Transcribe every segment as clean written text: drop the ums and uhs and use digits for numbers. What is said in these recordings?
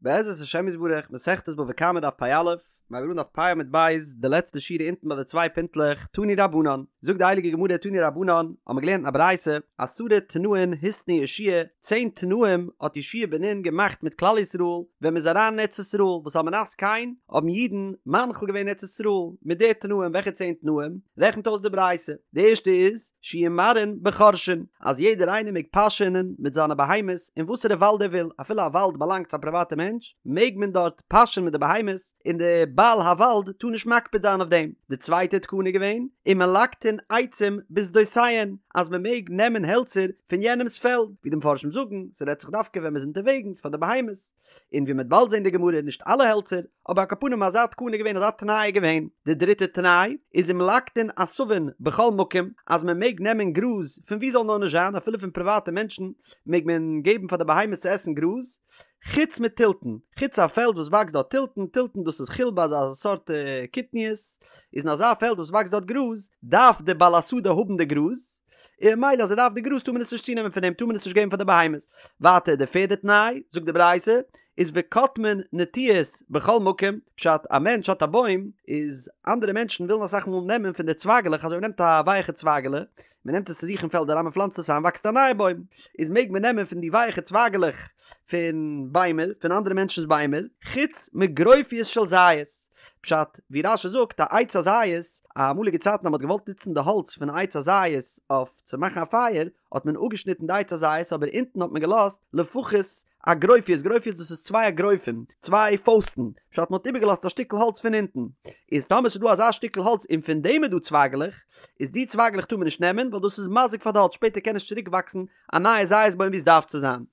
בעזרת השם יתברך, מסכת בבא קמא דף פ"א, מיר הייבן אן דף פ' עמוד ב', די לעצטע שורה אונטן ביי די צוויי פינטלעך, תנו רבנן, זאגט די הייליגע גמרא תנו רבנן, האבן מיר געלערנט אין א ברייתא, עשרה תנאין התנה יהושע צען תנאים האט יהושע בן נון געמאכט מיט כלל ישראל ווען מ'איז אריין אין ארץ ישראל, וואס על מנת כן האבן אידן מנחיל געווען ארץ ישראל מיט די תנאים, וועלכע צען תנאים? רעכנט אויס די ברייתא, די ערשטע איז, שיהו מרעין בחורשין, אז יעדער איינער מעג פאשענען מיט זיינע בהמות אין וואסערע וואלד ער וויל, אפילו א וואלד באלאנגט צו א פריוואטע מענטש, מעג מען דארט פאשען מיט די בהמות, און די בעל הוואלד טאר נישט מקפיד זיין אויף דעם. די צווייטע תקנה איז געווען, ומלקטין עצים בשדותיהן, אז מען מעג נעמען העלצער פון יענעמ'ס פעלד, ווי די מפרשים זאגן, ס'רעדט זיך דווקא ווען מ'איז אונטערוועגנס פאר די בהמות. און ווי מ'וועט באלד זען די גמרא נישט אלע העלצער, אבער על כל פנים אזא תקנה איז געווען אזא תנאי איז געווען. די דריטע תנאי איז ומלקטין עשבים בכל מקום אז מען מעג נעמען גראז פון ווי זאל נאר נישט זיין אפילו פון פריוואטע מענטשן מעג מען געבן פאר די בהמות צו עסן גראז, חוץ מתלתן, חוץ א פעלד וואס וואקסט דארט תלתן, תלתן דאס איז חילבה אזא סארט קטניות, איז אין אזא פעלד וואס וואקסט דארט גראז דארף די בעל השדה האבן די גראז, און ממילא אז ער דארף די גראז טאר מען עס נישט צונעמען פון אים טאר מען עס נישט געבן פאר די בהמות. ווייטער די פערדע תנאי, זאגט די ברייתא, איז וקוטמין נטיעות בכל מקום, פשט א מענטש האט א בוים, איז אנדערע מענטשן ווילן אסאך מאל נעמען פון די צווייגעלעך אזוי מען נעמט א ווייעכע צווייגעלע, מען נעמט עס צו זיך אין פעלד אריין מען פלאנצט עס איין וואקסט א נייע בוים, איז מעג מען נעמען פון די ווייעכע צווייגעלעך פון ביימער, פון אנדערע מענטשנ'ס ביימער, חוץ מגרופיות של זית. פשט, ווי רש"י זאגט, א עץ הזית, אמאליגע צייטן אז מען האט געוואלט נוצן די האלץ פון א עץ הזית אויף צו מאכן א פייער, האט מען אפגעשניטן די עץ הזית אבער אונטן האט מען געלאזט לפחות א גרופיות, גרופיות דאס איז צוויי אגרופים, צוויי פויסטן, פשט מען האט איבערגעלאזט א שטיקל האלץ פון אונטן, איז טאמער ס'איז דא אזא שטיקל האלץ און פון דעם איז דא צווייגלעך, איז די צווייגלעך טאר מען נישט נעמען ווייל דאס איז מזיק פאר די האלץ שפעטער קען נישט צוריק וואקסן א נייע זית בוים ווי עס דארף צו זיין.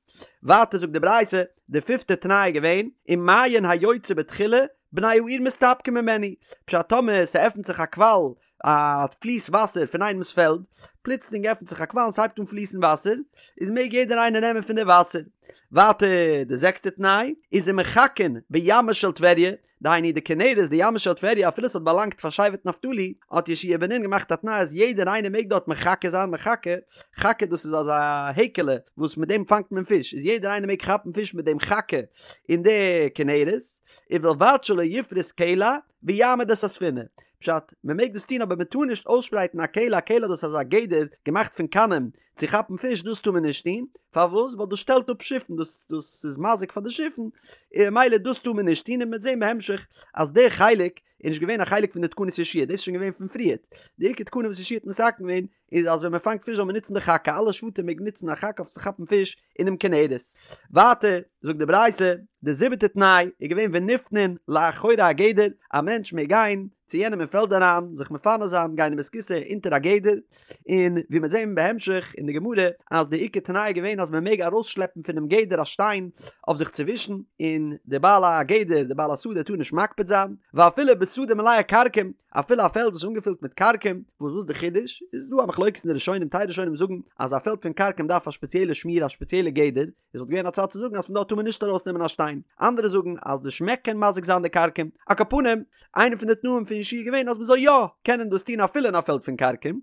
ווייטער זאגט די ברייתא, די פיפטע תנאי איז געווען, ומעיין היוצא בתחילה, בני העיר מסתפקין ממנו, פשט טאמער ס'עפנט זיך א קוואל, א פליס וואסער פון איינעמס פעלד, פלוצלינג עפנט זיך א קוואל און ס'הייבט אן פליסן וואסער, איז מעג יעדער איינער נעמען פון די וואסער. ווייטער די זעקסטע תנאי, איז ומחכין בימה של טבריה, דהיינו די כנרת די ימה של טבריה אפילו ס'האט באלאנגט פאר שבט נפתלי האט יהושע בן נון געמאכט א תנאי אז יעדער איינער מעג דארט מחכה זיין מחכה חכה דאס איז אזא העקעלע וואס מיט דעם פאנגט מען פיש איז יעדער איינער מעג כאפן פיש מיט דעם חכה אין די כנרת ובלבד שלא יפרוס קלע ויעמיד את הספינה פשט מען מעג דאס טון אבער מען טאר נישט אויסשפרייטן א קלע א קלע דאס איז אזא גדר געמאכט פון קנים צו כאפן פיש דאס טאר מען נישט טון, פארוואס? ווייל דאס שטעלט אפ שיפן, דאס דאס איז מזיק פאר די שיפן, און ממילא דאס טאר מען נישט טון, און מ'וועט זען בהמשך אז די חלק איז נישט געווען א חלק פון די תקנות יהושע, דאס איז שוין געווען פון פריערט, די עיקר תקנה וואס יהושע האט מתקן געווען איז אז ווען מען פאנגט פיש זאל מען נוצן די חכה, אלע שבטים מעגן נוצן א חכה אויף צו כאפן פיש אינעם כנרת. ווייטער זאגט די ברייתא, די זיבעטע תנאי איז געווען ונפנין לאחורי הגדר, א מענטש מעג גיין צו יענעם אין פעלד אריין זיך מפנה זיין, גיין אין בית הכסא אונטער א גדר, און ווי מ'וועט זען בהמשך אין די גמרא אז די עיקר תנאי איז געווען אז מען מעג ארויסשלעפן פונעם גדר א שטיין אויף זיך צו ווישן, און די בעל הגדר, די בעל השדה טאר נישט מקפיד זיין, ואפילו בשדה מלאה כרכום, אפילו א פעלד וואס איז אנגעפילט מיט כרכום, וואס וואס די חידוש? איז דא א מחלוקת אין די ראשונים, טייל ראשונים זאגן אז א פעלד פון כרכום דארף א שפעציעלע שמירה א שפעציעלע גדר, עס וואלט געווען א צד צו זאגן אז פון דארט טאר מען נישט ארויס נעמען א שטיין, אנדערע זאגן אז די שמעק קען מזיק זיין די כרכום, על כל פנים, איינע פון די תנאים פון יהושע איז געווען אז מען זאל יא קענען דאס טון אפילו אין א פעלד פון כרכום,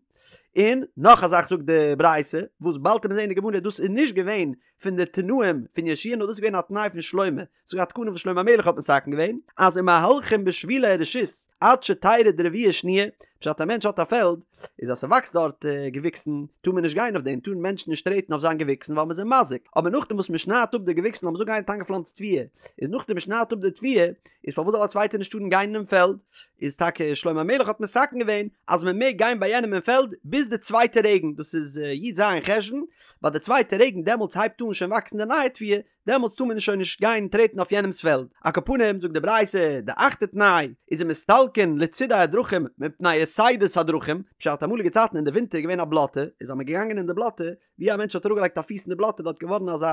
און נאך א זאך זאגט די ברייתא, וואס באלד וועט מען זען אין די גמרא דאס איז נישט געווען פון די תנאים פון יהושע נאר דאס איז געווען א תנאי פון שלמה, ס'איז א תקנה וואס שלמה המלך האט מתקן געווען, אז ומהלכין בשבילי הרשות עד שתרד רביעה שניה, פשט א מענטש האט א פעלד, איז אז ס'וואקסט דארט געוויקסן טאר מען נישט גיין אויף דעם, טארן מענטשן נישט טרעטן אויף זיין געוויקסן ווייל מ'איז אים מזיק, אבער נאכדעם וואס מ'שניידט אפ די געוויקסן לאמיר זאגן איינער האט איינגעפלאנצט תבואה, איז נאכדעם מ'שניידט אפ די תבואה, איז פארוואס זאל א צווייטער נישט טארן גיין אינעם פעלד? איז טאקע שלמה המלך האט מתקן געווען אז מ'מעג גיין ביי יענעם אין פעלד ביז די צווייטע רעגן, דאס איז י"ז חשוון, ביי די צווייטע רעגן דעמאלטס הייבט אן שוין וואקסן די נייע תבואה, דעמאלטס טאר מען שוין נישט גיין טרעטן אויף יענעמס פעלד. על כל פנים זאגט די ברייתא, די אכטע תנאי איז ומסתלקין לצידי הדרכים מפני יתידות הדרכים, פשט אמאליגע צייטן אין די ווינטער איז געווען א בלאטע, איז אז מען געגאנגען אין די בלאטע, ווי א מענטש האט אראפגעלייגט א פיס אין די בלאטע דארט געווארן אזא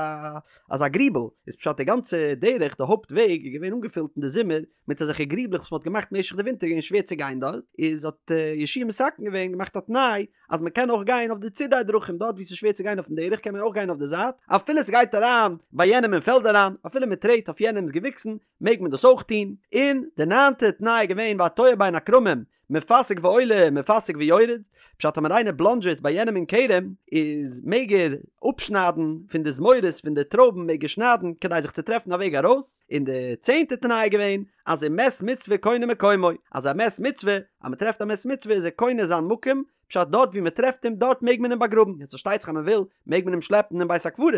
אזא גריבל, איז פשט די גאנצע דרך די הויפט וועג איז געווען אנגעפילט אין די זומער מיט אזעלכע גריבלעך וואס מען האט געמאכט משך די ווינטער געווען שווער צו גיין דארט, איז האט יהושע מתקן געווען געמאכט א תנאי אז מען קען אויך גיין אויף די צידי דרכים דארט ווי ס'איז שווער צו גיין אויפן דרך קען מען אויך גיין אויף די זייט אפילו ס'גייט אריין ביי יענעם. יענעם אין פעלד אריין, אפילו מען טרעט אויף יענעמ'ס געוויקסן מעג מען דאס אויך טון, און די ניינטע תנאי איז געווען והתועה בין הכרמים מפסיג ועולה מפסיג ויורד, פשט טאמער איינער בלאנדזשעט ביי יענעם אין כרם איז מעג ער אפשניידן פון די זמורות פון די טרויבן מעג ער שניידן כדי זיך צו טרעפן א וועג ארויס, און די צענטע תנאי איז געווען אז ומת מצוה קונה מקומו, אז א מת מצוה אז מען טרעפט א מת מצוה איז ער קונה זיין מקום, פשט דארט ווי מען טרעפט אים דארט מעג מען אים באגראבן, יעצט פארשטייט זיך אז מען וויל מעג מען אים שלעפן אין בית הקברות,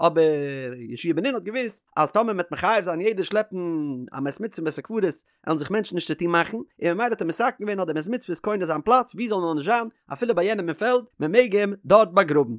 אבער יהושע בן נון האט געוואוסט אז טאמער מען וועט מחייב זיין יעדער שלעפן א מת מצוה אין בית הקברות וועלן זיך מענטשן נישט צוטון מאכן, און ממילא האט ער מתקן געווען אז דער מת מצוה איז קונה זיין פלאץ ווי זאל נאר נישט זיין אפילו ביי יענעם אין פעלד, מען מעג אים דארט באגראבן.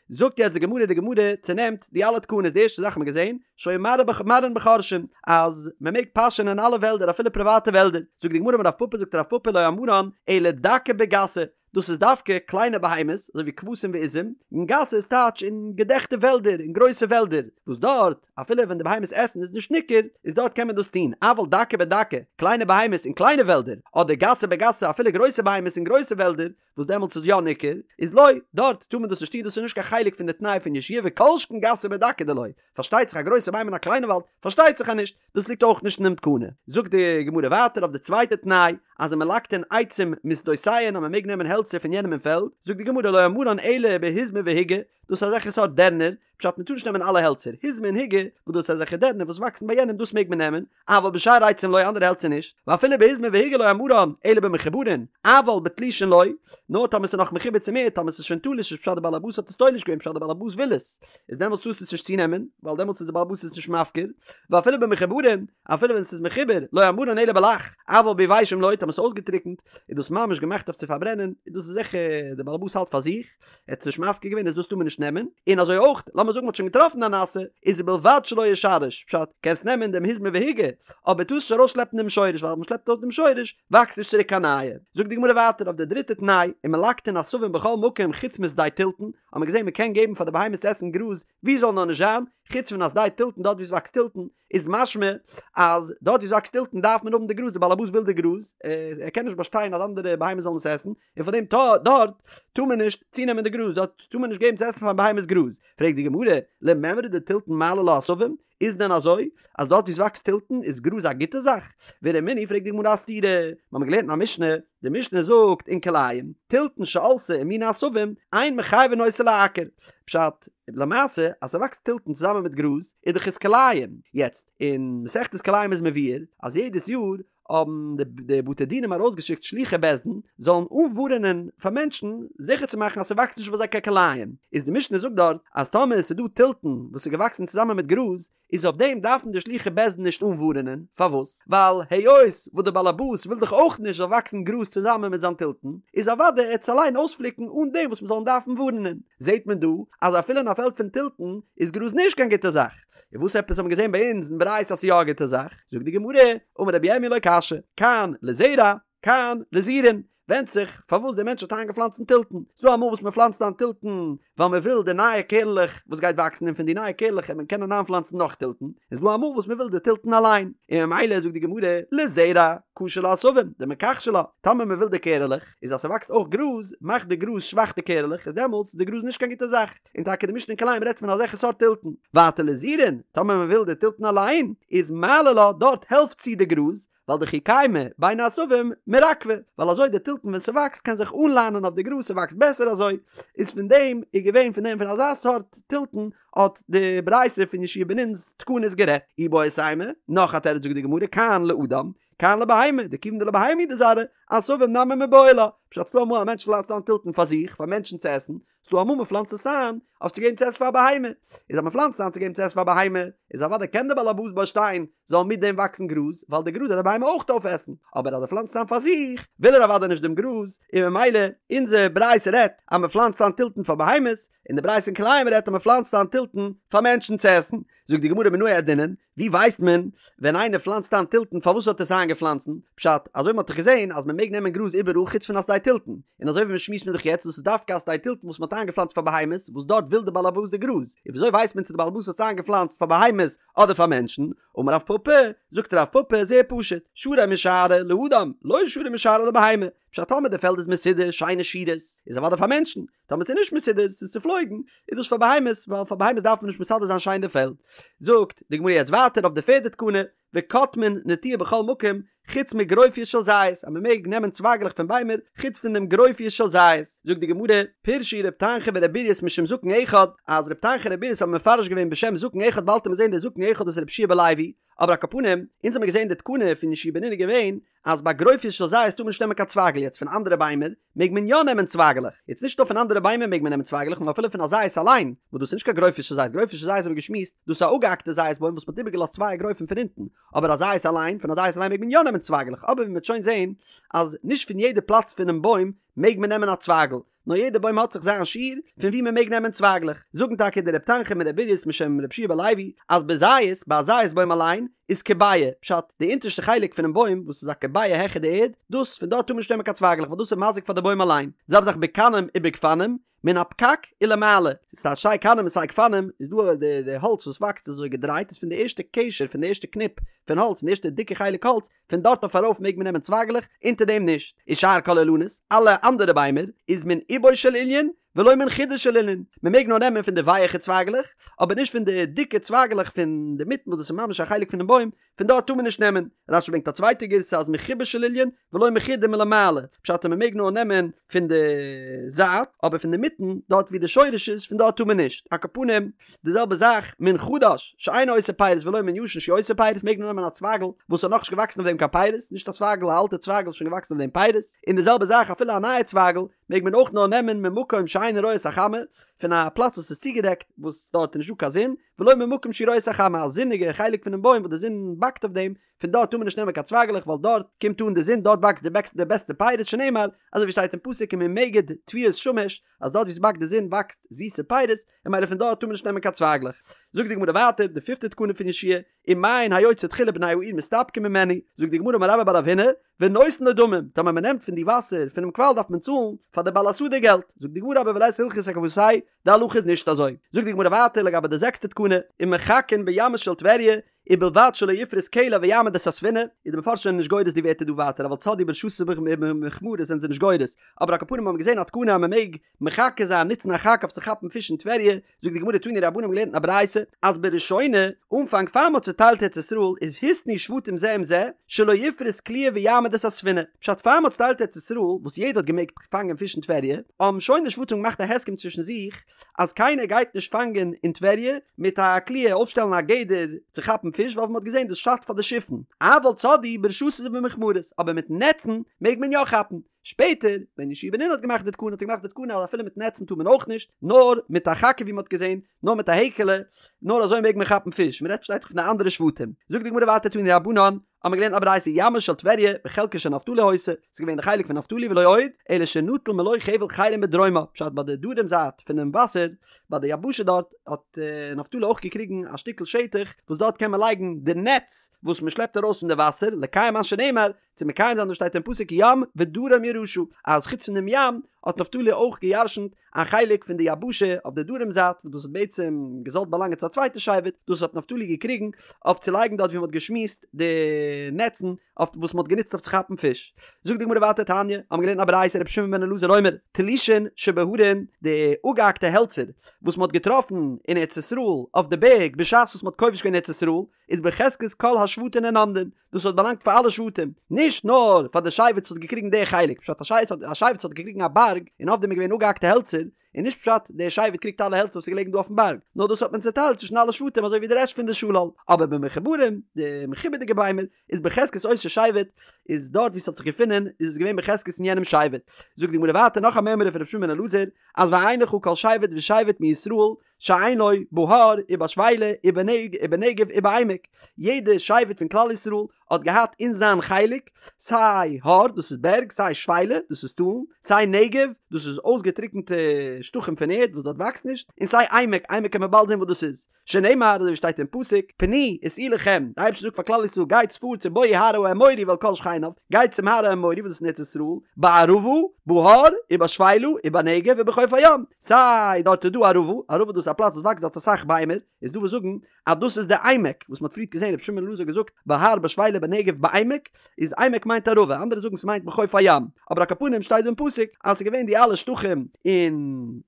זאגט יעצט די גמרא, די גמרא צונעמט די אלע תקנות, די ערשטע זאך האט מען געזען, שהיו מרעין בחורשין, אז מען מעג פאשען אין אלע וועלדער אפילו פריוואטע וועלדער, זאגט די גמרא אמר רב פפא זאגט רב פפא לא אמרן אלא דקה בגסה, דאס איז דווקא קליינע בהמות אזוי ווי כבשים ועזים, און גסה איז טייטש אין געדעכטע וועלדער אין גרויסע וועלדער, וואס דארט אפילו ווען די בהמות עסן איז נישט ניכר, איז דארט קען מען דאס טון, אבל דקה בדקה, קליינע בהמות אין קליינע וועלדער, אדער גסה בגסה אפילו גרויסע בהמות אין גרויסע וועלדער, וואס דעמאלטס איז יא ניכר, איז לא, דארט טאר מען דאס נישט טון, דאס איז נישט קיין חלק פון די תנאי פון יהושע וכל שכן גסה בדקה דלא, פארשטייט זיך א גרויסע בהמה אין א קליינע וואלד, פארשטייט זיך אז נישט, דאס ליגט אויך נישט אין דעם תקנה. זאגט די גמרא ווייטער אויף די צווייטע תנאי, אז ומלקטין עצים משדותיהן אז מען מעג נעמען העלצער פון יענעם אין פעלד, זאגט די גמרא לא אמרן אלא בהיזמי והיגי, דאס איז אזעלכע סארט דערנער, פשט מען טאר נישט נעמען אלע העלצער, היזמי און היגי, וואס דאס איז אזעלכע דערנער וואס וואקסן ביי יענעם דאס מעג מען נעמען, אבל בשאר עצים לא אנדערע העלצער נישט, ואפילו בהיזמי והיגי לא אמרן אלא במחוברין, אבל בתלושין לא, נאר טאמער ס'איז נאך מחובר צום ערד, טאמער ס'איז שוין תלוש איז פשט די בעל הבית האט עס תולש געווען פשט די בעל הבית וויל עס, איז דעמאלטס טארסטו עס נישט צונעמען, ווייל דעמאלטס איז די בעל הבית עס נישט מפקיר, ואפילו במחוברין, אפילו ווען ס'איז מחובר, לא אמרן אלא בלח, אבל ביבשים לא, טאמער ס'איז אויסגעטריקנט, איז דאס ממש געמאכט אויף צו פארברענען, איז דאס זיכער די בעל הבית האלט פאר זיך. ער האט עס נישט מפקיר געווען איז דאס טאר מען נישט נעמען, און אזוי אויך לאמיר זאגן מען האט שוין געטראפן אן נאסע, איז ובלבד שלא ישרש, פשט, קענסט נעמען דעם היזמי והיגי, אבער טארסט נישט ארויסשלעפן דעם שורש ווייל אז מען שלעפט ארויס דעם שורש וואקסט נישט צוריק קיין נייע. זאגט די גמרא ווייטער אויף די דריטע תנאי, ומלקטין עשבים בכל מקום חוץ משדה תלתן, האט מען געזען מען קען געבן פאר די בהמות צו עסן גראז ווי זאל נאר נישט זיין, חוץ פון א שדה תלתן דארט ווי עס וואקסט תלתן, איז משמע אז דארט ווי עס וואקסט תלתן דארף מען האבן די גראז, די בעל הבית וויל די גראז, ער קען נישט באשטיין אז אנדערע בהמות זאלן עס עסן, און פאר דעם דארט טאר מען נישט צונעמען די גראז, דארט טאר מען נישט געבן צו עסן פאר בהמות גראז. פרעגט די גמרא, למימרא דתלתן מעלי לה עשבים, איז דען אזוי אז דארט ווי עס וואקסט תלתן איז גראז א גוטע זאך? ורמינהי פרעגט די גמרא א סתירה, מיר האבן געלערנט אין א משנה, די משנה זאגט אין כלאים, תלתן שעלתה עם מיני עשבים, אין מחייבין אותו לעקר. פשט, למעשה אז ס'וואקסט תלתן צוזאמען מיט גראז איז דאך עס כלאים. יעצט, אין מסכת כלאים איז מבואר אז יעדעס יאר האבן די בתי דינים ארויסגעשיקט שלוחי בית דין זאלן אנווארענען פאר מענטשן זיכער צו מאכן אז ס'וואקסט נישט ביי זיי קיין כלאים. איז די משנה זאגט דארט אז טאמער עס איז דא תלתן וואס איז געוואקסן צוזאמען מיט גראז איז אויף דעם דארפן די שלוחי בית דין נישט אנווארענען, פארוואס? ווייל היות וואס די באלעבאס וויל דאך אויך נישט זאל וואקסן גראז צוזאמען מיט זיין תלתן, איז אוודאי ער וועט עס אליין אויספליקן אן דעם וואס מען זאל אים דארפן ווארענען. זעט מען דא אז אפילו אין א פעלד פון תלתן איז גראז נישט קיין גוטע זאך. און וואס עפעס האט מען געזען ביי אונז אין ברייתא אז ס'איז יא א גוטע זאך? זאגט די גמרא, אמר רבי ירמי' לא קשיא, כאן לזרע, כאן לזירין, ווענדט זיך פארוואס דער מענטש האט איינגעפלאנצט תלתן. ס'דא אמאל וואס מען פלאנצט איין תלתן ווייל מען וויל די נייע קערלעך וואס גייט וואקסן און פון די נייע קערלעך וועט מען קענען איינפלאנצן נאך תלתן. און ס'דא אמאל וואס מען וויל די תלתן אליין. און ממילא זאגט די גמרא לזרע קשו לה עשבים דמכחשי לה. טאמער מען וויל די קערעלעך, איז אז ס'וואקסט אויך גראז, מאכט די גראז שוואך די קערעלעך, איז דעמאלטס איז די גראז נישט קיין גוטע זאך. און טאקע די משנה אין כלאים רעדט פון אזעלכע סארט תלתן. ווייטער לזירין, טאמער מען וויל די תלתן אליין, איז מעלי לה, דארט העלפט צו די גראז, ווייל דכי קיימא בין העשבים מרקבא, ווייל אזוי די תלתן ווען ס'וואקסט קען זיך אנליינען אויף די גראז ס'וואקסט בעסער אזוי, איז פון דעם איז געווען פון דעם פון אזא סארט תלתן האט די ברייתא פון יהושע בן נון'ס תקנות גערעדט. איבעית אימא, נאך א תירוץ זאגט די גמרא כאן לאדם, כאן לבהמה, דכיון דלבהמה הוא דזרעה, עשבים נמי מיבעי לה, פשט ס'דא אמאל א מענטש פלאנצט איין תלתן פאר זיך, פאר מענטשן צו עסן, ס'דא אמאל מ'פלאנצט עס איין אויף צו געבן צו עסן פאר א בהמה, איז אז מ'פלאנצט עס איין צו געבן צו עסן פאר א בהמה, איז אוודאי קען דער בעל הבית באשטיין זאל מיט דעם וואקסן גראז, ווייל די גראז וועט די בהמה אויך אויפעסן, אבער אז ער פלאנצט עס איין פאר זיך, וויל ער אוודאי נישט דעם גראז, און ממילא אונזער ברייתא רעדט אז מ'פלאנצט איין תלתן פאר בהמות, און די ברייתא אין כלאים רעדט אז מ'פלאנצט איין תלתן פאר מענטשן צו עסן. זאגט די גמרא מנא ידעינן, ווי ווייסט מען ווען איינער פלאנצט איין תלתן פארוואס האט ער עס איינגעפלאנצן? פשט, אזוי מ'האט דאך געזען אז מ'מעג נעמען גראז איבעראל חוץ פון א שדה תלתן, און אזוי ווי מ'שמועסט מיר דאך יעצט דאס איז דווקא א שדה תלתן וואס מ'האט איינגעפלאנצט פאר בהמות וואס דארט וויל די בעל הבית די גראז, און וויאזוי ווייסט מען צו די בעל הבית האט עס איינגעפלאנצט פאר בהמות אדער פאר מענטשן? אמר רב פפא, זאגט רב פפא, זייער פשוט, שרי משארי לאדם, לא שרי משארי לבהמה. פשט טאמער די פעלד איז מסודר, שיינע שורות, איז אוודאי פאר מענטשן, טאמער ס'איז נישט מסודר, ס'איז צופלויגן, איז דאס פאר בהמות, ווייל פאר בהמות דארף מען נישט מסדר זיין שיין די פעלד. זאגט די גמרא יעצט ווייטער אויף די פערדע תקנה, וקוטמין נטיעה בכל מקום, חוץ מגרופיות של זית, אז מען מעג נעמען צווייגלעך פון ביימער, חוץ פון דעם גרופיות של זית. זאגט די גמרא, פירשו ר' תנחום ור' ברייס משום זקן אחד, אז ר' תנחום און ר' ברייס האבן מפרש געווען בשם זקן אחד באלד וועט מען זען דער זקן אחד דאס איז רבי יהושע בן לוי, אבער על כל פנים, אונז האמיר געזען די תקנה פון יהושע בן נון איז געווען, אז ביי גרופיות של זית טאר מען נישט נעמען קיין צווייגל יעצט פון אנדערע ביימער מעג מען יא נעמען צווייגלעך יעצט נישט נאר פון אנדערע ביימער מעג מען נעמען צווייגלעך נאר אפילו פון א זית אליין וואס דאס איז נישט קיין גרופיות של זית גרופיות של זית האבן מיר געשמועסט דאס איז א אפגעהאקטע זית בוים וואס מען האט איבערגעלאזט צוויי אגרופים פון אונטן אבער א זית אליין פון א זית אליין מעג מען יא נעמען צווייגלעך אבער ווי מען וועט שוין זען אז נישט פון יעדע פלאץ פונעם בוים מעג מען נעמען א צווייגל נאר יעדע בוים האט זיך זיין שיעור פון ווי מען מעג נעמען צווייגלעך, זאגן טאקע די רב תנחום און ר' ברייס משם רבי יהושע בן לוי אז בזית, ביי א זית בוים אליין, איז כביעה, פשט, די אונטערשטע חלק פונעם בוים וואס איז א כביעה העכער די ערד, דאס, פון דארט טאר מען נישט נעמען קיין צווייגלעך ווייל דאס איז מזיק פאר די בוים אליין, די זעלבע זאך בקנים ובגפנים, מן הפקק ולמעלה, ס'טייטש סיי קנים און סיי גפנים, איז דא די די האלץ וואס וואקסט אזוי געדרייט איז פון די ערשטע קשר פון די ערשטע קניפ פון האלץ פון די ערשטע דיקע חלק האלץ, פון דארט אויף ארויף מעג מען נעמען צווייגלעך, אונטער דעם נישט. ושאר כל האילנות, אלע אנדערע ביימער, איז מן אובו של אילן ולא מן חודו של אילן, מען מעג נאר נעמען פון די ווייעכע צווייגלעך, אבער נישט פון די דיקע צווייגלעך פון די מיטן וואס דאס איז ממש א חלק פונעם בוים, פון דארט טאר מען נישט נעמען. רש"י ברענגט א צווייטע גירסא אז מחובו של אילן ולא מחודו מלמעלה, פשט אז מען מעג נאר נעמען פון די זייט, אבער פון די מיטן, דארט ווי די שורש איז, פון דארט טאר מען נישט. על כל פנים, די זעלבע זאך מן חדש שאינו עושה פירות ולא מן ישן שהוא עושה פירות מעג מען נעמען א צווייגל וואס האט נאכנישט געוואקסן אויף דעם קיין פירות, נישט א צווייגל א אלטע צווייגל איז שוין געוואקסן אויף דעם פירות, און די זעלבע זאך אפילו א נייע צווייגל מעג מען אויך נאר נעמען ממקום שאינו רואה את החמה, פון א פלאץ וואס איז צוגעדעקט וואס דארט איז נישטא קיין זון, ולא ממקום שהוא רואה את החמה א זוניגע חלק פונעם בוים וואס די זון באקט אויף דעם, פון דארט טאר מען נישט נעמען קיין צווייגלעך ווייל דארט קומט אן די זון דארט וואקסט די בעסטע פירות שנאמר אזוי ווי שטייט אין פסוק וממגד תבואות שמש אז דארט ווי ס'באקט די זון וואקסט זיסע פירות און ממילא פון דארט טאר מען נישט נעמען קיין צווייגלעך. זאגט די גמרא ווייטער די פיפטע תקנה פון יהושע ומעין היוצא תחילה בני העיר מסתפקים ממנו, זאגט די גמרא אמר רבה בר רב הונא, ונותן לו דמים, טאמער מען נעמט פון די וואסער פונעם קוואל דארף מען צאלן פאר די בעל השדה געלט, זאגט די גמרא אבער ולית הלכתא כוותיה, די הלכה איז נישט אזוי. זאגט די גמרא ווייטער לגבי די זעקסטע תקנה, ומחכין בימה של טבריה, ובלבד שלא יפרוס קלע ויעמיד את הספינה, איז די מפרשים זענען נישט גורס די ווערטער דא ווייטער אבל צדעו ברשתות ובמכמרות זענען זיי נישט גורס, אבער על כל פנים האבן מיר געזען א תקנה אז מען מעג מחכה זיין נוצן א חכה אויף צו כאפן פיש אין טבריה, זאגט די גמרא תנו רבנן האבן געלערנט אין א ברייתא אז בראשונה, אנפאנג פאר מען האט צוטיילט ארץ ישראל איז התנו שבטים זה עם זה שלא יפרוס קליעה ויעמיד את הספינה, פשט פאר מען האט צוטיילט ארץ ישראל וואס יעדער האט געמעגט פאנגען פיש אין טבריה, האבן שוין די שבטים געמאכט א הסכם צווישן זיך אז קיינער גייט נישט פאנגען אין טבריה מיט א קליעה אויפשטעלן א גדר צו כאפן פיש ווייל ווי מ'האט געזען דאס שאדט פאר די שיפן, אבל צדעו ברשתות ובמכמרות, אבער מיט נעצן מעג מען יא כאפן. שפעטער ווען יהושע בן נון האט געמאכט די תקנה האט ער געמאכט די תקנה אז אפילו מיט נעצן טאר מען אויך נישט, נאר מיט א חכה ווי מ'האט געזען, נאר מיט א העקעלע, נאר אזוי מעג מען כאפן פיש, מ'רעדט פארשטייט זיך פון די אנדערע שבטים. זאגט די גמרא ווייטער תנו רבנן, האבן מיר געלערנט א ברייתא ימה של טבריה בחלקו של נפתלי היתה, ס'איז געווען די חלק פון נפתלי ולא עוד, אלא שנטל מלא חבל חרם בדרומה, פשט ביי די דרום זייט פונעם וואסער, ביי די יבשה דארט, האט נפתלי אויך געקריגן א שטיקל שטח וואס דארט קען מען לייגן די נעץ וואס מען שלעפט ארויס פון די וואסער, לקיים מה שנאמר, צו מקיים זיין וואס שטייט אין פסוק ים ודרום ירשה, אז חוץ פון דעם ים האט נפתלי אויך געירשנט א חלק פון די יבשה אויף די דרום זייט וואס דאס האט בעצם געזאלט באלאנגען צו א צווייטע שבט, דאס האט נפתלי געקריגן אויף צו לייגן דארט ווי מען האט געשמועסט די נעצן אויף וואס מען האט גענוצט אויף צו כאפן פיש. זאגט די גמרא ווייטער תניא, האבן מיר געלערנט א ברייתא רבי שמעון בן אלעזר אומר, תלושין שבהרים, די אפגעהאקטע העלצער וואס מען האט געטראפן אין ארץ ישראל אויף די בערג בשעת וואס מען האט כובש געווען ארץ ישראל, איז בחזקת כל השבטים הן עומדין, דאס האט באלאנגט פאר אלע שבטים, נישט נאר פאר די שבט וואס האט געקריגן די חלק, פשט א שבט א שבט וואס האט געקריגן א בארג און אויף דעם איז געווען אפגעהאקטע העלצער, איז נישט פשט דער שבט קריגט אלע העלצער וואס איז געלעגן דא אויפן בארג, נאר דאס האט מען צעטיילט צווישן אלע שבטים אזוי ווי די רעשט פון די שלל, אבער במחוברים, די מחובר'דיגע ביימער, איז בחזקת אותו שבט, איז דארט ווי עס האט זיך געפונען איז עס געווען בחזקת אין יענעם שבט. זאגט די גמרא ווייטער נאך א מימרא פון רבי שמעון בן אלעזר, אז ואין לך כל שבט ושבט מישראל שאין לו בהר ובשפלה ובנגב ובעמק, יעדע שבט פון כלל ישראל האט געהאט אין זיין חלק סיי הר דאס איז בערג, סיי שפלה דאס איז טאלן, סיי נגב דאס איז אויסגעטריקענטע שטחים פון ערד וואס דארט וואקסט נישט, און סיי עמק, עמק קען מען באלד זען וואס דאס איז, שנאמר אזוי ווי שטייט אין פסוק, פנו וסעו לכם, די אייבערשטער זאגט פאר כלל ישראל גייטס פארטס ובאו הר האמורי ואל כל שכניו, גייטס צום הר האמורי וואס דאס איז אין ארץ ישראל, בערבה, בהר, ובשפלה, ובנגב ובחוף הים, סיי דארט איז דא ערבה, ערבה דאס איז א פלאץ וואס וואקסט דארט אסאך ביימער, איז דא וואס זאגן אז דאס איז די עמק, וואס מען האט פריערט געזען רבי שמעון בן אלעזר האט געזאגט בהר בשפלה בנגב בעמק, איז. עמק מיינט ערבה, אנדערע זאגן ס'מיינט בחוף הים, אבער על כל פנים שטייט דא אין פסוק אז ס'איז געווען די אלע שטחים אין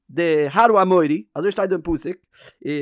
די הר האמורי, אזוי שטייט דא אין פסוק,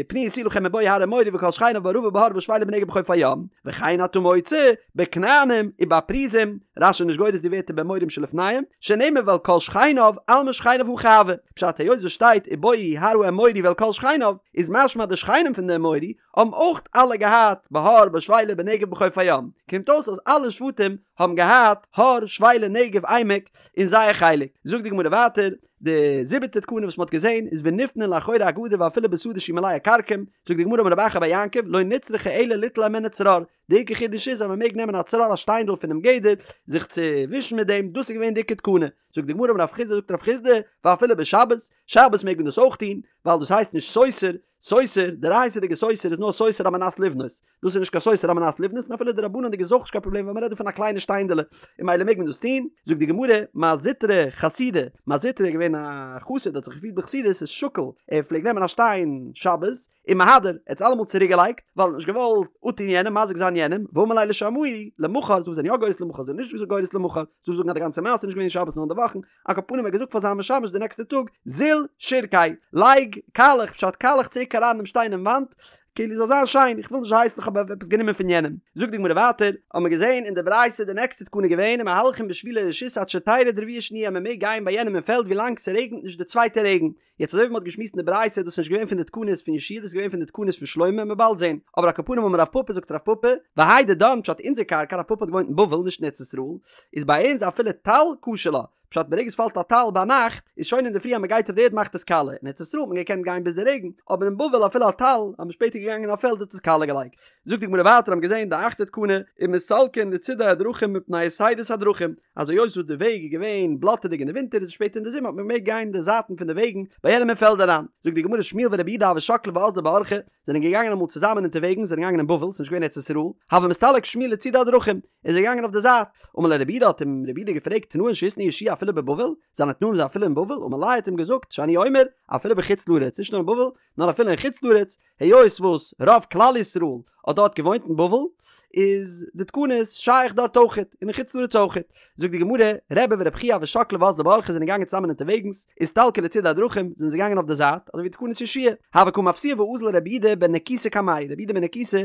פנו יתנו לכם ובאו הר האמורי וכל שכניו בערבה בהר בשפלה בנגב בחוף הים, וכן אתה מוצא בכנענים ובפריזים, רש"י איז נישט גורס די ווערטער באמורים שלפניהם, שנאמר ואל כל שכניו אלמא שכניו הכי הוו, פשט היות עס שטייט ובאו הר האמורי ואל כל שכניו, איז משמע די שכנים פון די אמורי האבן אויך אלע געהאט בהר בשפלה בנגב בחוף הים, קומט אויס אז אלע שבטים האבן געהאט הר שפלה נגב עמק אין זייער חלק, זאגט די גמרא ווייטער, די זיבעטע תקנה וואס מען האט געזען איז ונפנין לאחורי הגדר ואפילו בשדה שהיא מלאה כרכום, זאגט די גמרא אמר רב אחא בר יעקב לא נצרכה אלא ליטול הימנה צרור, די עיקר חידוש איז אז מען מעג נעמען א צרור א שטיינדל פונעם גדר זיך צו ווישן מיט דעם, דאס איז געווען די עיקר תקנה, זאגט די גמרא אמר רב חסדא זאגט רב חסדא ואפילו בשבת, שבת מעג מען דאס אויך טון, ווייל דאס הייסט נישט סותר, סותר, דאורייתא'דיגע סותר איז נאר סותר על מנת לבנות, דאס איז נישט קיין סותר על מנת לבנות און אפילו דרבנן'דיג איז אויך נישט קיין פראבלעם ווייל מ'רעדט דא פון א קליינע שטיינדעלע און ממילא מעג מען דאס טון, זאגט די גמרא, מר זוטרא חסידא, מר זוטרא איז געווען א חסיד האט זיך געפירט בחסידות איז שקיל, ער פלעגט נעמען א שטיין שבת ומהדר, ער האט עס אלעמאל צוריק געלייגט, ווייל ער האט נישט געוואלט אפטון יענעם, מזיק זיין יענעם, ואמר ליה לשמעיה, למחר, דא זענען יא גורס למחר, זענען נישט גורס למחר, דא זאגן אז די גאנצע מעשה איז נישט געווען שבת נאר אין די וואכן, על כל פנים ער האט געזאגט פאר זיין משמש די נעקסטע טאג, זיל שירקיה, לייג קאלעך, פשט קאלעך צוריק אריין דעם שטיין אין וואנט, כאילו זאל זיין שיין, איך וויל נישט הייסן איך האב עפעס גענומען פון יענעם. זאגט די גמרא ווייטער, האבן מיר געזען אין די ברייתא די נעקסטע תקנה געווען ומהלכין בשבילי רשות עד שתרד רביעה שניה מען מעג גיין ביי יענעם אין פעלד ווילאנג ס'רעגנט נישט די צווייטע רעגן, יעצט אזוי ווי מ'האט געשמועסט אין די ברייתא איז דאס נישט געווען פון די תקנות פון יהושע דאס איז געווען פון די תקנות פון שלמה מ'וועט באלד זען, אבער על כל פנים אמר רב פפא זאגט רב פפא, והאי דידן פשט אונזער קרקע רב פפא האט געוואוינט אין בבל נישט אין ארץ ישראל, איז ביי אונז אפילו טל קשה לה, פשט ברגע עס פאלט א טל ביינאכט איז שוין אינדערפרי אז מ'גייט אויף די ערד מאכט עס קאלע, אין ארץ ישראל האט מען געקענט גיין ביז די רעגן, אבער אין בבל אפילו א טל אז מ'איז שפעטער געגאנגען אין א פעלד האט עס קאלע געלייגט. זאגט די גמרא ווייטער האבן געזען די אכטע תקנה, ומסלקין לצידי הדרכים מפני יתידות הדרכים, אז היות וואס די וועג איז געווען בלאטעדיג אין די ווינטער איז שפעטער אין די זומער האט מען געמעגט גיין אין די זייטן פון די וועגן ביי יענעם אין פעלד אריין. זאגט די גמרא שמואל ורב יהודה הוו שקלי ואזלי באורחא, זענען געגאנגען אמאל צוזאמען אונטערוועגנס זענען געגאנגען אין בבל ס'איז נישט געווען ארץ ישראל, הוה מסתלק שמואל לצידי הדרכים, איז ער געגאנגען אויף די זייט, אמר ליה רב יהודה האט אים רב יהודה געפרעגט תנאין שהתנה יהושע אפילו בבבל, זיינע תנאים זענען אפילו אין בבל, אמר ליה האט אים געזאגט שאני אומר אפילו בחוץ לארץ נישט נאר אין בבל נאר אפילו אין חוץ לארץ, היות וואס רוב כלל ישראל האט דארט געוואוינט אין בבל, איז די תקנות שייך דארט אויכעט, און אין חוץ לארץ אויכעט. זאגט די גמרא, רבי ורבי חייא הוו שקלי ואזלי באורחא זענען געגאנגען צוזאמען אונטערוועגנס, אסתלקו לצידי הדרכים, זענען זיי געגאנגען אויף די זייט, אזוי ווי תקנות יהושע הוה קא מפסיע ואזיל רבי יהודה בן נקוסא קמייהו, רבי יהודה בן נקוסא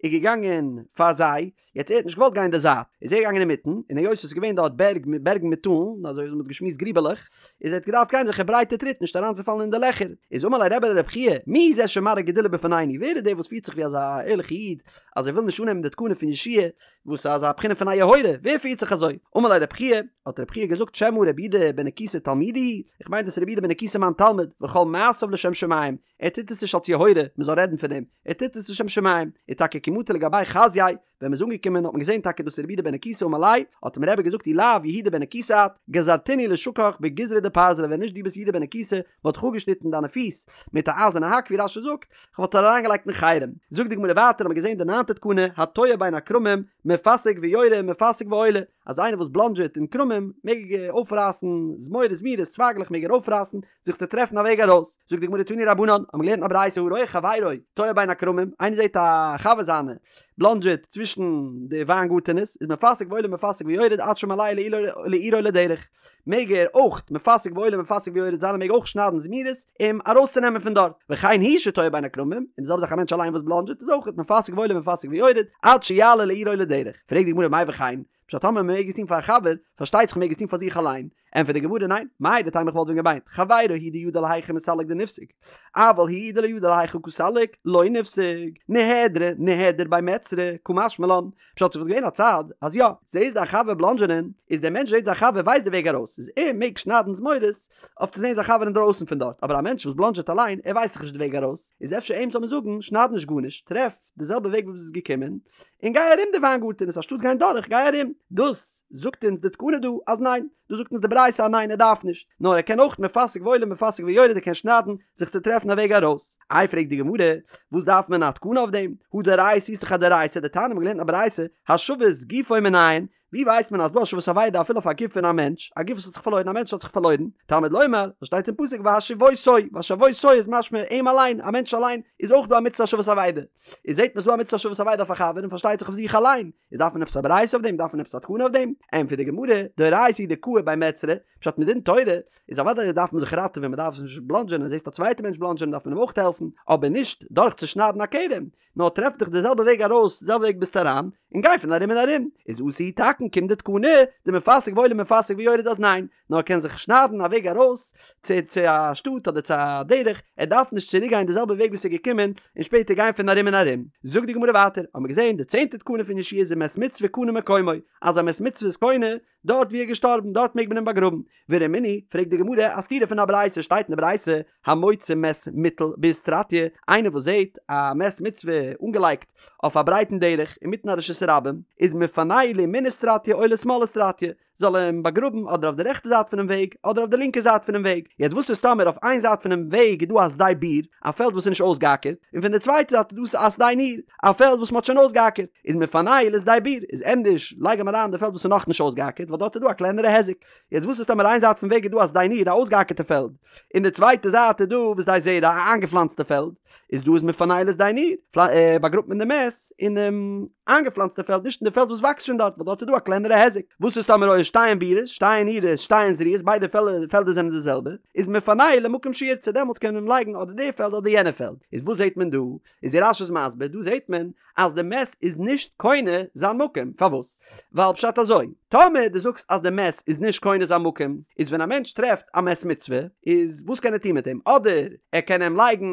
איז געגאנגען פאר זיי, יעצט ער האט נישט געוואלט גיין די זייט, איז ער געגאנגען אינמיטן, און היות עס איז געווען דארט בערג מיט בערגן מיט טאלן, אזוי ווי מען האט געשמועסט גריבעלעך, איז ער האט געדארפט גיין אזעלכע ברייטע טריט נישט אריינצופאלן אין די לעכער, איז אמר ליה רבי לרבי חייא, מי זה שמראה גדולה בפנינו, ווער איז דער וואס פירט זיך ווי אזא ערליכע איד, אז ער וויל נישט אננעמען די תקנה פון יהושע וואס איז אזא בחינה פון א יוהרא, ווער פירט זיך אזוי? אמר ליה רבי חייא, האט רבי חייא געזאגט שמא רבי יהודה בן נקוסא תלמידי הוא, איך מיין דאס איז רבי יהודה בן נקוסא מיין תלמיד, וכל מעשיו לשם שמים, ער טוט עס נישט אלס יוהרא, מען זאל רעדן פון אים, ער טוט עס לשם שמים, און טאקע כי מטו לגביה חזייה, ווען מען איז אנגעקומען האט מען געזען טאקע דאס איז רבי יהודה בן נקוסא אמר ליה, האט אים רבי געזאגט אי לאו יהודה בן נקוסא את, גזרתינהו לשקיך בגיזרא דפרזלא ווען נישט דו ביסט יהודה בן נקוסא וואלט איך אפגעשניטן דיינע פיס מיט א אייזערנע האק ווי רש"י זאגט, כ'וואלט דיר אריינגעלייגט אין חרם. זאגט די גמרא ווייטער האט מען געזען די ניינטע תקנה התועה בין הכרמים מפסיק ויורה מפסיק ועולה, אז איינער וואס בלאנדזשעט אין כרמים מעג אויפרייסן זמורות זמירות צווייגלעך מעג ער אויפרייסן זיך צו טרעפן א וועג ארויס, זאגט די גמרא תנו רבנן, האבן מיר געלערנט אין א ברייתא הרואה חברו תועה בין הכרמים, איינער זעט א חבר זיינע בלאנדזשעט צווישן די וויינגארטענעס, איז מפסיק ועולה מפסיק ויורד עד שמעלהו לעירו לדרך, מעג ער אויך מפסיק ועולה מפסיק ויורד זיין ער מעג אויך שניידן זמירות אים ארויסצונעמען פון דארט, וכן הוא שתועה בין הכרמים, און די זעלבע זאך א מענטש אליין וואס בלאנדזשעט איז אויך מפסיק ועולה מפסיק ויורד עד שיעלה לעירו לדרך, פרעגט די גמרא מאי וכן, פשט טאמער מען מעג עס טון פאר א חבר, פארשטייט זיך מען מעג עס טון פאר זיך אליין, ענטפערט די גמרא ניין, מהו דתימא איך וואלט ווען געמיינט, חברו הוא דידע להיכא מסלק דנפסיק, אבל הוא דלא ידע להיכא קא סליק, לא נפסיק, נהדרי נהדר ביה מיצרי, קא משמע לן, פשט ס'וואלט געווען א צד אז יא, זעסט דיין חבר בלאנדזשענען, איז דער מענטש זעט זיין חבר ווייסט די וועג ארויס, איז ער מעג שניידן זמורות אויף צו זען זיין חבר אינדרויסן פון דארט, אבער א מענטש וואס בלאנדזשעט אליין, ער ווייסט זיך נישט די וועג ארויס, איז אפשר אים זאל מען זאגן, שנייד נישט גארנישט, טרעף די זעלבע וועג וואס ביסט געקומען, און גיי ארום די וויינגארטענעס אנשטאטס גיין דורך, גיי ארום. דאס זאגט אונז די תקנה דא אז ניין, דאס זאגט אונז די ברייתא אז ניין ער דארף נישט, נאר ער קען אויך מפסיק ועולה מפסיק ויורד ער קען שניידן זיך צו טרעפן א וועג ארויס. איי פרעגט די גמרא, וואס דארף מען א תקנה אויף דעם? הא דאורייתא איז דאך א דאורייתא, דתניא מ'האט געלערנט א ברייתא, השבת גופו מנין? ווי ווייסט מען אז דא השבת אבידה אפילו אויף א גוף פון א מענטש, א גוף וואס האט זיך פארלוירן, א מענטש האט זיך פארלוירן, תלמוד לומר, וואס שטייט אין פסוק והשיבותו, והשיבותו איז משמע אים אליין, א מענטש אליין, איז אויך דא א מצוה השבת אבידה. איז זעט מען ס'דא א מצוה השבת אבידה אויף א חבר און פארשטייט זיך אויף זיך אליין, איז דארף מען עפעס א ברייתא אויף דעם? דארף מען עפעס א תקנה אויף דעם? ענטפערט די גמרא, דאורייתא הוא דקאי בי מיצרי, פשט מדין תורה איז אוודאי דארף מען זיך ראטעווען מען דארף נישט בלאנדזשען אז זעסט א צווייטע מענטש בלאנדזשען דארף מען אים אויך העלפן, אבער נישט דורך צו שניידן א כרם, נאר טרעף דיך די זעלבע וועג ארויס, די זעלבע וועג ביסט אריין, און גיי פון ארום און ארום, איז אתא הוא תקין קומט די תקנה, דמפסיק ועולה מפסיק ויורד אז ניין, נאר ער קען זיך שניידן א וועג ארויס צו צו א שטאט אדער צו א דרך, ער דארף נישט צוריק גיין די זעלבע וועג וואס ער איז געקומען און שפעטער גיין פון ארום און ארום. זאגט די גמרא ווייטער, האבן מיר געזען די צענטע תקנה פון יהושע איז ומת מצוה קונה מקומו, אז א מת מצוה איז קונה דארט ווי ער איז געשטארבן דארט מעג מען אים באגראבן. ורמינהי, פרעגט די גמרא א סתירה פון א ברייתא, שטייט אין די ברייתא, המוצא מת מוטל באיסטרטיא, איינער וואס זעט א מת מצוה אנגעלייגט אויף א ברייטן דרך אינמיטן א רשות הרבים, איז מפנהו לימין איסטרטיא או לשמאל איסטרטיא, זאל ער אים באגראבן אדער אויף די רעכטע זייט פונעם וועג אדער אויף די לינקע זייט פונעם וועג. יעצט וואס איז טאמער אויף איין זייט פונעם וועג איז דא א שדה ביר, א פעלד וואס איז נישט אויסגעאקערט, און פון די צווייטע זייט איז דא א שדה ניר, א פעלד וואס מען האט שוין אויסגעאקערט, איז מפנהו לשדה ביר, איז ענדערש לייג אים אריין אין די פעלד וואס איז נאכנישט אויסגעאקערט ווייל דארט איז דא א קלענערע היזק. יעצט וואס איז טאמער איין זייט פון וועג איז דא א שדה ניר, א אויסגעאקערטע פעלד, און די צווייטע זייט איז דא ושדה זרע, א איינגעפלאנצטע פעלד, איז דא איז מפנהו לשדה ניר, באגראבט מען די מת אינעם איינגעפלאנצטע פעלד נישט אין די פעלד וואס וואקסט שוין דארט ווייל דארט איז דא א קלענערע היזק. וואס איז טאמער היו שתיהן בירות, שתיהן נירות, שתיהן זרועות, ביידע פעלדער זענען די זעלבע, איז מפנהו למקום שירצה דעמאלטס קען מען אים לייגן אדער די פעלד אדער יענע פעלד. איז וואס זעט מען דא? איז ווי רש"י איז מסביר, דא זעט מען אז די מת איז נישט קונה זיין מקום, פארוואס? ווייל פשט אזוי, טאמער דו זאגסט אז די מת איז נישט קונה זיין מקום, איז ווען א מענטש טרעפט א מת מצוה, איז וואס קען ער טון מיט אים? אדער ער קען אים לייגן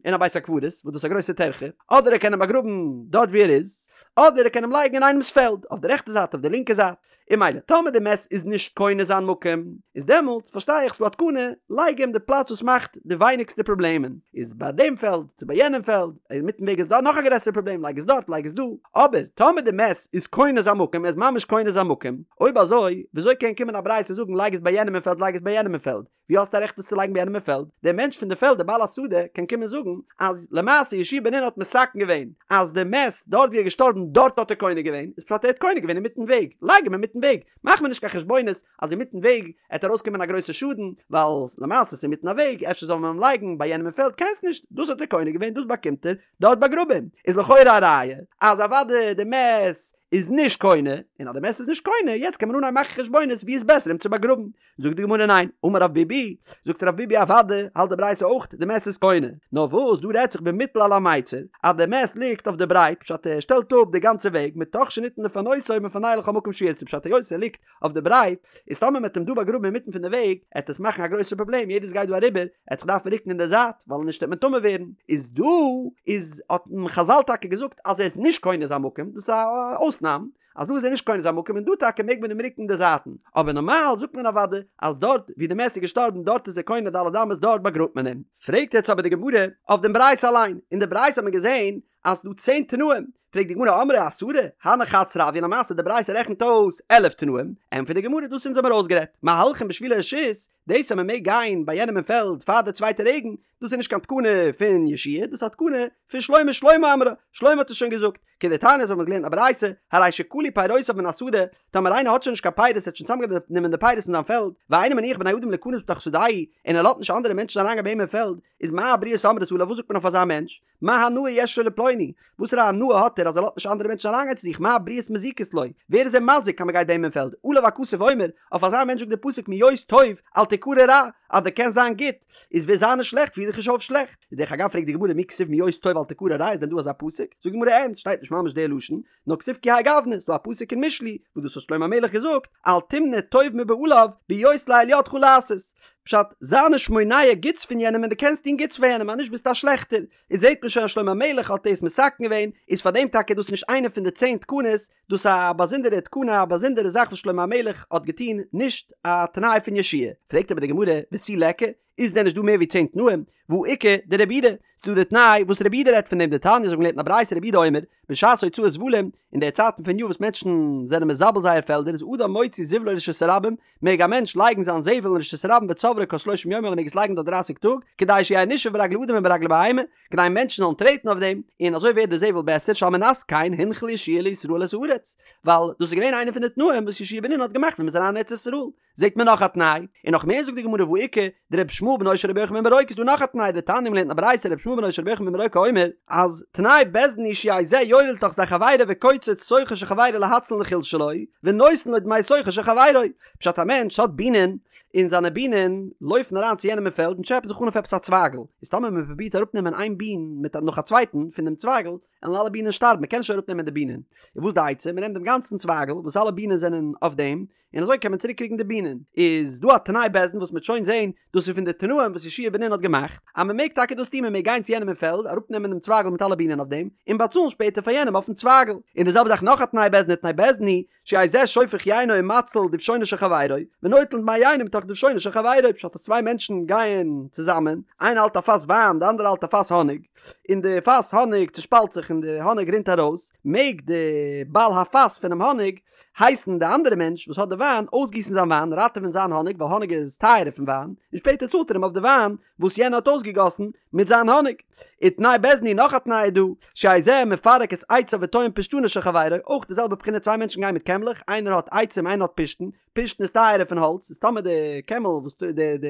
אין א בית הקברות, וואס דאס איז א גרויסע טרחה, אדער ער קען אים באגראבן דארט ווי ער איז, אדער ער קען אים לייגן אין איינעמס פעלד, אויף די רעכטע זייט אויף די לינקע זייט. און ממילא טאמער די מת איז נישט קונה זיין מקום, איז דעמאלטס פארשטיי איך ס'דא א תקנה, לייג אים די פלאץ וואס מאכט די ווייניגסטע פראבלעמען, איז ביי דעם פעלד צו ביי יענעם פעלד, אינמיטן וועג איז דא נאך א גרעסערע פראבלעם לייג עס דארט לייג עס דא, אבער טאמער די מת איז קונה זיין מקום, ער איז ממש קונה זיין מקום, אויב אזוי וויאזוי קען קומען א ברייתא זאגן לייג עס ביי יענעם אין פעלד לייג עס ביי יענעם אין פעלד, ווי האסטו א רעכט עס צו לייגן ביי יענעם אין פעלד? דער מענטש פון די פעלד דער בעל השדה קען קומען זאגן אז למעשה יהושע בן נון האט מתקן געווען אז די מת דארט ווי ער איז געשטארבן דארט האט ער קונה געווען, איז פשט ער האט קונה געווען אינמיטן וועג, לייג אים אינמיטן וועג, מאך מיר נישט קיין חשבונות אז אינמיטן וועג עט ארויסקומען א גרויסע שאדן ווייל למעשה ס'איז אינמיטן א וועג אפשר זאל מען אים לייגן ביי יענעם אין פעלד קענסט נישט, דאס האט ער קונה געווען דאס באקומט ער, דארט באגראב אים, איז לכאורה א ראיה אז אוודאי די מת איז נישט קונה, און אז די מת איז נישט קונה יעצט קען מען אנהייבן מאכן חשבונות ווי איז בעסער אים צו באגראבן, זאגט די גמרא ניין, אמר רב ביבי, זאגט רב ביבי אוודאי האלט די ברייתא אויך די מת איז קונה, נאר וואס דא רעדט זיך במוטל על המיצר, אז די מת ליגט אויף די ברייט, פשט ער שטעלט אפ די גאנצע וועג, מתוך שניתן לפנותו מפנהו לכל מקום שירצה, פשט היות ער ליגט אויף די ברייט, איז טאמער מ'עט אים דא באגראבן אינמיטן פון די וועג, עט עס מאכן א גרויסע פראבלעם, יעדער וואס גייט דא אריבער, עט זיך דארפן רוקן אין די זייט, ווייל נישט עט מען טמא ווערן, איז דא איז האט חזל טאקע געזאגט אז ער איז נישט קונה זיין מקום, דאס איז א אויסנאם, אז דא איז ער נישט קונה זיין מקום און דא טאקע מעג מען אים רוקן די זייטן, אבער נארמאל זאגט מען אוודאי אז דארט ווי די מת איז געשטארבן דארט איז ער קונה ד' אמות דארט באגראבט מען אים. פרעגט יעצט אבער די גמרא אויף דעם ברייתא אליין, אין די ברייתא האט מען געזען אז ס'דא צען תנאים, פרעגט די גמרא אמרי עשרה, הני חד סרי הוו, למעשה די ברייתא רעכנט אויס 11 תנאים, ענטפערט די גמרא דאס אונז האמיר אויסגערעדט, מהלכין בשבילי רשות, דאס אז מען מעג גיין ביי יענעם אין פעלד פאר די צווייטע רעגן, דאס איז נישט קיין תקנה פון יהושע דאס איז א תקנה פון שלמה, שלמה אמרה, שלמה האט עס שוין געזאגט, כדתניא אזוי האט מען געלערנט א ברייתא, הרי שכלו פירותיו מן השדה, טאמער איינער האט שוין נישט קיין פירות ער האט שוין צוזאמגענומען די פירות אין זיין פעלד, ואינו מניח בני אדם ליכנס בתוך שדהו, און ער לאזט נישט אנדערע מענטשן אריינגיין ביי אים אין פעלד, איז מה הבריות אומרות עליו וואס זאגט מען אויף אזא מענטש? מה הנאה יש לו לפלוני? וואסערע הנאה האט ער אז ער לאזט נישט אנדערע מענטשן אריינגיין צו זיך? מה הבריות מזיקות לו? ווער איז ער מזיק אז מען גייט ביי אים אין פעלד? עליו הכתוב אומר, אויף אזא מענטש זאגט דער פסוק מהיות טוב אל תקרא רע, אז דו קענסט זיין גוט, איז ווער זיי נישט שלעכט פיר דיך נישט אויף שלעכט. דרך אגב פרעגט די גמרא מי כתיב מהיות טוב אל תקרא רע איז דען דא אזא פסוק? זאגט די גמרא אין, ס'שטייט נישט ממש די לשון, נאר כתיב כי האי גוונא, ס'דא א פסוק אין משלי וואס דאס האט שלמה המלך געזאגט, אל תמנע טוב מבעליו בהיות לאל ידך לעשות. פשט, זיי נישט מונע גוטס פון יענעם ווען דו קענסט טון גוטס פאר יענעם אז נישט ביסטו א שלעכטער. איז זעט מען שוין אז שלמה המלך האט דאס מתקן געווען, איז פאר דעם טאקע דאס נישט איינע פון די צען תקנות, דאס א באזונדערע תקנה א באזונדערע זאך וואס שלמה המלך האט געטון, נישט א תנאי פון יהושע. פרעגט אבער די גמרא, ותו ליכא, איז דען נישט דא מער ווי צען תנאים? והא איכא דרבי יהודה, ס'דא די תנאי וואס רבי יהודה רעדט פון דעם דתניא אזוי ווי מ'האט געלערנט אין א ברייתא רבי יהודה אומר, בשעת הוצאת זבלים, אין די צייטן פון יאר וואס מענטשן זענען מזבל זייער פעלדער איז אדם מוציא זבלו לרשות הרבים, מעג א מענטש לייגן זיין זבל אין רשות הרבים וצוברו כל שלושים יום ער מעג עס לייגן דארט דרייסיג טאג, כדי שיהא נשאב ברגלי אדם וברגלי בהמה, כדי מענטשן זאלן טרעטן אויף דעם, און אזוי ווערט די זבל בעסער שעל מנת כן הנחיל יהושע לישראל את הארץ, ווייל דאס איז געווען איינע פון די תנאים וואס יהושע בן נון האט געמאכט ווען מ'איז אריין אין ארץ ישראל. זעט מען נאך א תנאי, און נאך מער זאגט די גמרא והא איכא דרבי ישמעאל בנו של רבי יוחנן בן ברוקה איז דא נאך א תנאי דתניא מ'לערנט אין א ברייתא רבי ישמעאל בנו של רבי יוחנן בן ברוקה אומר אז תנאי בית דין הוא שיהא זה יורה לתוך שדה חברו וקוצץ שוכו של חברו להציל נחיל שלו ונותן לו דמי שוכו של חברו פשט א מענטש האט בינען און זיינע בינען לויפן אריין צו יענעם אין פעלד און טשעפען זיך אן אויף עפעס א צווייגל איז טאמער מען פרובירט אראפנעמען איין בין מיט נאך א צווייטן פון דעם צווייגל וועלן אלע בינען שטארבן מען קען נישט אראפנעמען די בינען איז וואס די עצה מען נעמט דעם גאנצן צווייגל וואס אלע בינען זענען אויף דעם און אזוי קען מען צוריק קריגן די בינען. איז דא א תנאי בית דין וואס מ'וועט שוין זעהן, דאס איז פון די תנאים וואס יהושע בן נון האט געמאכט, אז מ'מעג טאקע דאס טון, מ'מעג גיין צו יענעם אין פעלד, אראפנעמען דעם צווייגל מיט אלע בינען אויף דעם, און באצאלן שפעטער פאר יענעם אויפן צווייגל. און די זעלבע זאך נאך א תנאי בית דין ותנאי בית דין הוא, שיהא זה שופך יינו ומציל דובשונו של חברו, ונוטל דמי יינו מתוך דובשונו של חברו, פשט אז צוויי מענטשן גייען צוזאמען, איינער האלט א פאס וויין, די אנדערע האלט א פאס האניג, און די פאס האניג צושפאלט זיך און די האניג רינט ארויס, מעג די בעל הפאס פונעם האניג הייסן די אנדערע מענטש וואס האט די וויין אויסגיסן זיין וויין, ראטעווען זיין האניג ווייל האניג איז טייערער פון וויין, און שפעטער צאלט ער אים אויף די וויין וואס יענער האט אויסגעגאסן מיט זיין האניג. ותנאי בית דין הוא נאך א תנאי איז דא, שיהא זה מפרק את עציו וטוען פשתנו של חברו, אויך די זעלבע בחינה צוויי מענטשן גייען מיט קעמלעך, איינער האט עצים איינער האט פשתן, פשתן איז טייערער פון האלץ, איז טאמער די קעמל וואס די די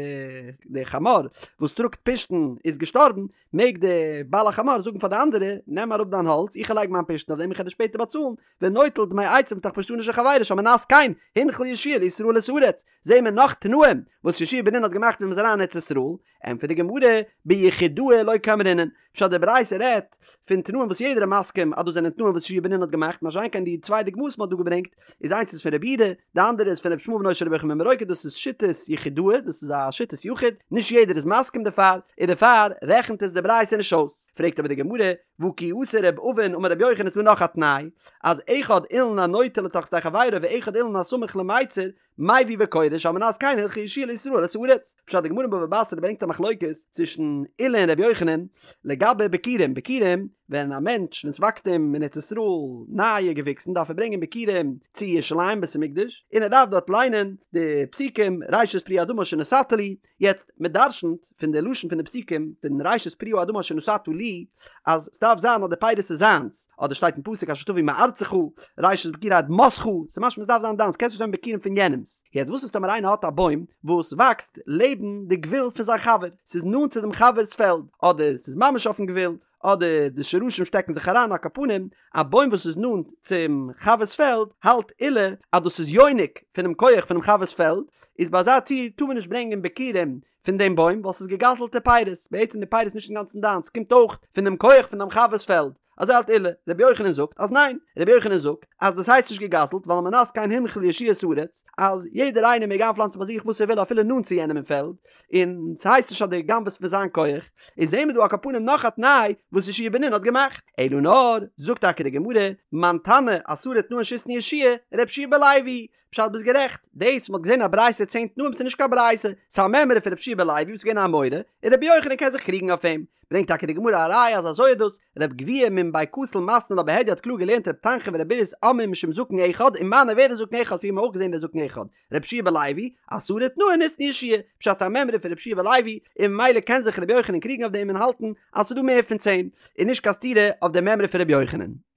די חמור וואס טראגט פשתן איז געשטארבן, מעג די בעל החמור זאגן פאר די אנדערע, נעם אראפ דיין האלץ, איך לייג מיין פשתן אויף דעם איך וועל דיר שפעטער באצאלן, ונוטל דמי עציו מתוך פשתנו של חברו שעל מנת כן הנחיל יהושע לישראל את הארץ, זעהן מיר נאך תנאים וואס יהושע בן נון האט געמאכט ווען מ'איז אריין אין ארץ ישראל, ענטפערט די גמרא, ביחידאה לא קאמרינן, פשט די ברייתא רעדט פון תנאים וואס יעדער איז מסכים אז דאס זענען תנאים וואס יהושע בן נון האט געמאכט, מה שאין כן די צוויי דוגמאות מ'האט דא געברענגט איז איינס איז פון רבי יהודה, די אנדערע איז פון רבי ישמעאל בנו של רבי יוחנן בן ברוקה דאס איז שיטת יחידאה דאס איז א שיטת יחיד, נישט יעדער איז מסכים דערפאר, און דערפאר רעכנט עס די ברייתא נישט אויס. פרעגט אבער די גמרא, והא כי אתא ר' אבין אמר רבי יוחנן איז דא נאך א תנאי, אז אחד אילן הנוטה לתוך שדה חברו ואחד אילן הסמוך למיצר, מביא וקורא שעל מנת כן הנחיל יהושע לישראל את הארץ. פשט די גמרא אין בבא בתרא ברענגט א מחלוקת צווישן עולא און רבי יוחנן לגבי ביכורים, ביכורים ווען א מענטש ווען ס'וואקסט אים אין ארץ ישראל נייע געוויקסן דארף ער ברענגען ביכורים צו ירושלים בית המקדש און ער דארף דארט ליינען די פסוקים ראשית פרי האדמה אשר נתתה לי, יעצט, מען דרשנ'ט פון די לשון פון די פסוקים פון ראשית פרי האדמה אשר נתתה לי, אז ס'דארף זיין אז די פירות איז זיינס, אדער שטייט אין פסוק אשר תביא מארצך, ראשית ביכורי אדמתך, ס'איז משמע ס'דארף זיין דיינס, קענסט נישט נעמען ביכורים פון יענעמ'ס. יעצט וואס איז טאמער איינער האט א בוים וואס וואקסט לעבן די גבול פון זיין חבר, ס'איז נאנט צו דעם חבר'ס פעלד, אדער ס'איז ממש אויפן גבול, אדער די שרשים שטעקן זיך אריין על כל פנים, א בוים וואס איז נאנט צום חבר'ס פעלד, האלט עולא אז דאס איז יונק פונעם כח פונעם חבר'ס פעלד, איז ביי אזא ציור טאר מען נישט ברענגען ביכורים פון דעם בוים ווייל ס'איז געגזל'טע פירות, בעצם די פירות איז נישט אינגאנצן דיינס, ס'קומט אויך פון דעם כח פון דעם חבר'ס פעלד, אזוי האלט עולא, רבי יוחנן זאגט אז ניין, רבי יוחנן זאגט אז דאס הייסט נישט געגזל'ט ווייל על מנת כן הנחיל יהושע את הארץ, אז יעדער איינער מעג איינפלאנצן ביי זיך וואס ער וויל אפילו נאנט צו יענעם אין פעלד, און ס'הייסט נישט אז דו גנב'עסט פון זיין כח, איז זעהן מיר דא על כל פנים נאך א תנאי וואס יהושע בן נון האט געמאכט, אלא נאר, זאגט טאקע די גמרא, מאן תנא עשרה תנאין שהתנה יהושע, ר' יהושע בן לוי, פשט ביסט גערעכט, דאס מ'האט געזעהן א ברייתא צען תנאים ס'איז נישט קיין ברייתא, ס'איז א מימרא פון ר' יהושע בן לוי וואס איז געווען א אמורא, און רבי יוחנן קען זיך קריגן אויף אים, ברענגט טאקע די גמרא א ראיה אז אזוי איז דאס, רב גביהה מן בי כתיל מתני לה בהדיא האט קלאר געלערנט רב תנחום ורב בירס אומרים משום זקן אחד, ומנו ווער איז דער זקן אחד פריער האבן מיר אויך געזעהן דער זקן אחד, ר' יהושע בן לוי, עשרה תנאין התנה יהושע, פשט ס'איז א מימרא פון ר' יהושע בן לוי, און ממילא קען זיך ר' יוחנן קריגן אויף דעם און האלטן אז ס'איז דא מער פון צען, און נישט קיין סתירה אויף די מימרא פון ר' יוחנן.